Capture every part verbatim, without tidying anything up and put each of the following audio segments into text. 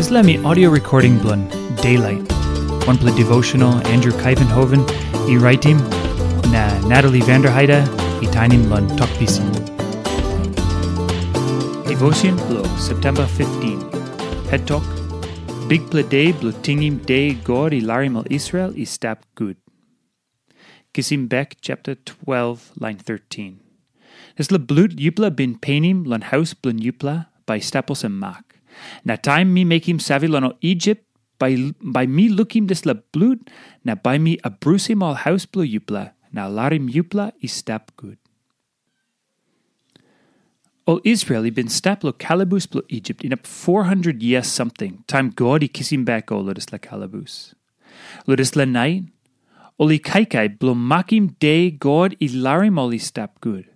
Dispela mi audio recording bilong Daylight. Wanpela devotional Andrew Kaivenhoven i raitim na Natalie Vanderheide i tainim long Tok Pisin. Devotion bilong September fifteen. Het tok, Bikpela De bilong tingim De God i larim ol Israel i stap gut. Kisim bek chapter twelve, lain thirteen. Dispela blut yupela bin penim long haus bilong yupela bai i stap olsem mak. Na taim mi mekim save long ol Isip, bai, bai mi lukim dispela blut, na bai mi abrusim ol haus bilong yupela, na larim yupela i stap gut. Ol Israel i bin stap long kalabus bilong Isip inap four hundred yia samting, taim God i kisim bek ol long dispela kalabus. Long dispela nait, ol i kaikai bilong makim De God i larim ol i stap gut.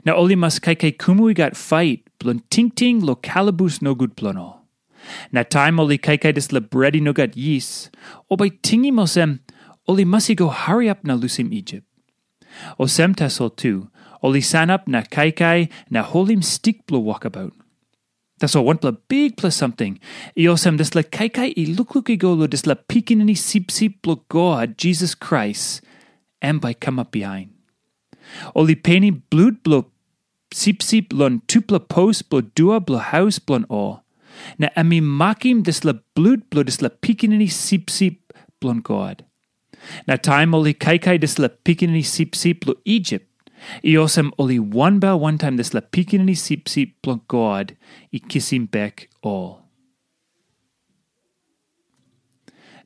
Na ol i mas kaikai kumu i gat fait bilong tingting long kalabus nogut bilong ol. Na taim ol i kaikai dispela bret i no gat yis, ol bai tingim olsem, ol i mas i go hariap na lusim Isip. Olsem tasol tu, ol i sanap na kaikai na holim stik bilong wokabaut. Tasol wanpela bikpela samting, i olsem dispela kaikai i lukluk i go long dispela Pikinini Sipsip bilong God, Jisas Krais, em bai i kamap bihain. Ol i penim blut bilong sipsip long tupela pos bilong dua bilong haus bilong ol, na em i makim dispela blut bilong dispela Pikinini Sipsip bilong God. Na taim ol i kaikai dispela Pikinini Sipsip long Isip, i olsem ol i wanbel wantaim dispela Pikinini Sipsip bilong God i kisim bek ol.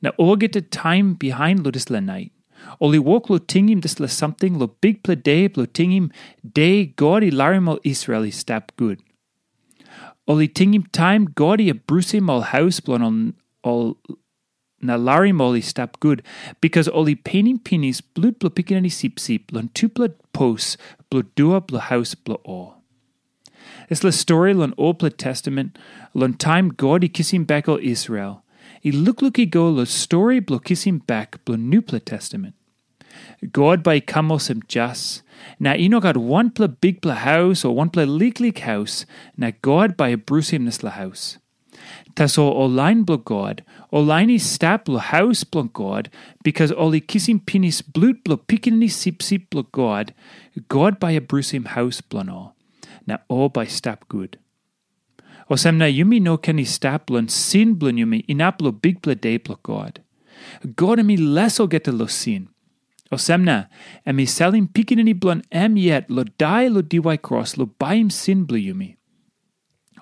Na olgeta taim bihain long dispela nait, ol i wok long tingim dispela samting long Bikpela De bilong tingim De God i larim ol Israel i stap gut. Ol i tingim taim God i abrusim ol haus bilong ol, ol na larim ol i stap gut, bikas ol i penim pinis blut bilong Pikinini Sipsip long tupela pos bilong dua bilong haus bilong ol. Dispela stori long Olpela Testament, long taim God i kisim bek ol Israel, i lukluk i go long stori bilong kisim bek bilong Nupela Testament. God bai i kam olsem jas, na i no gat wanpela bikpela haus o wanpela liklik haus, na God bai i brusim dispela haus. Tasol ol lain bilong God, ol lain i stap long haus bilong God, bikas ol i kisim pinis blut bilong Pikinini Sipsip bilong God, God bai i brusim haus bilong ol, na ol bai i stap gut. Olsem na yumi no ken i stap long sin bilong yumi inap long Bikpela De bilong God. God em i les olgeta long sin. Olsem na, em i salim Pikinini bilong em yet long dai long diwai kros long baim sin bilong yumi.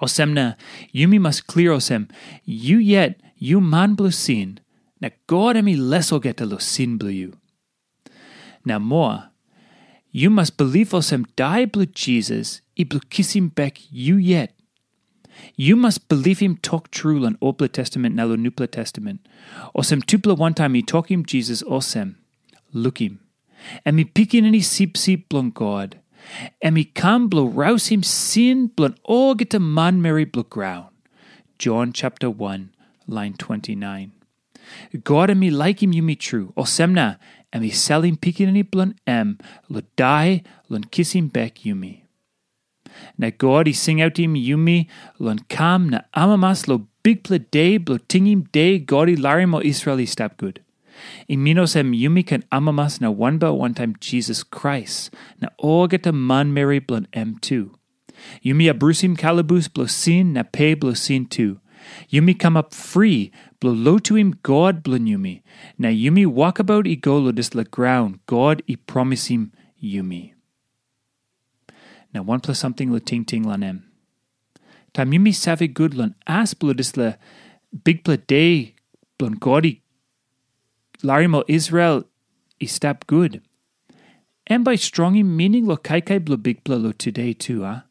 Olsem na, yumi mas klia olsem, yu yet, yu man bilong sin, na God em i les olgeta long sin bilong yu. Na moa, yu mas bilip olsem dai bilong Jisas i bilong kisim bek yu yet. Yu mas bilipim tok tru long Olpela Testament na long Nupela Testament, olsem tupela wantaim i tokim Jisas olsem, lukim, em i Pikinini Sipsip bilong God. Em i kam bilong rausim sin bilong olgeta manmeri bilong graun. Jon chapter one, lain twenty-nine. God em i laikim yumi tru, olsem na em i salim Pikinini bilong em long dai long kisim bek yumi. Na God i singautim yumi long kam na amamas long Bikpela De bilong tingim De God i larim ol Israel i stap gut. I min olsem yumi ken amamas na wanbel wantaim Jisas Krais na olgeta manmeri bilong em tu. Yumi abrusim kalabus bilong sin na pe bilong sin tu. Yumi kamap fri bilong lotuim God bilong yumi, na yumi wokabaut i go long dispela graun God i promisim yumi. Na wanpela samting long tingting long em. Taim yumi save gut long as bilong dispela Bikpela De bilong God i larim ol Israel i stap gut, em bai strongim mining long kaikai bilong Bikpela long tude tu, a?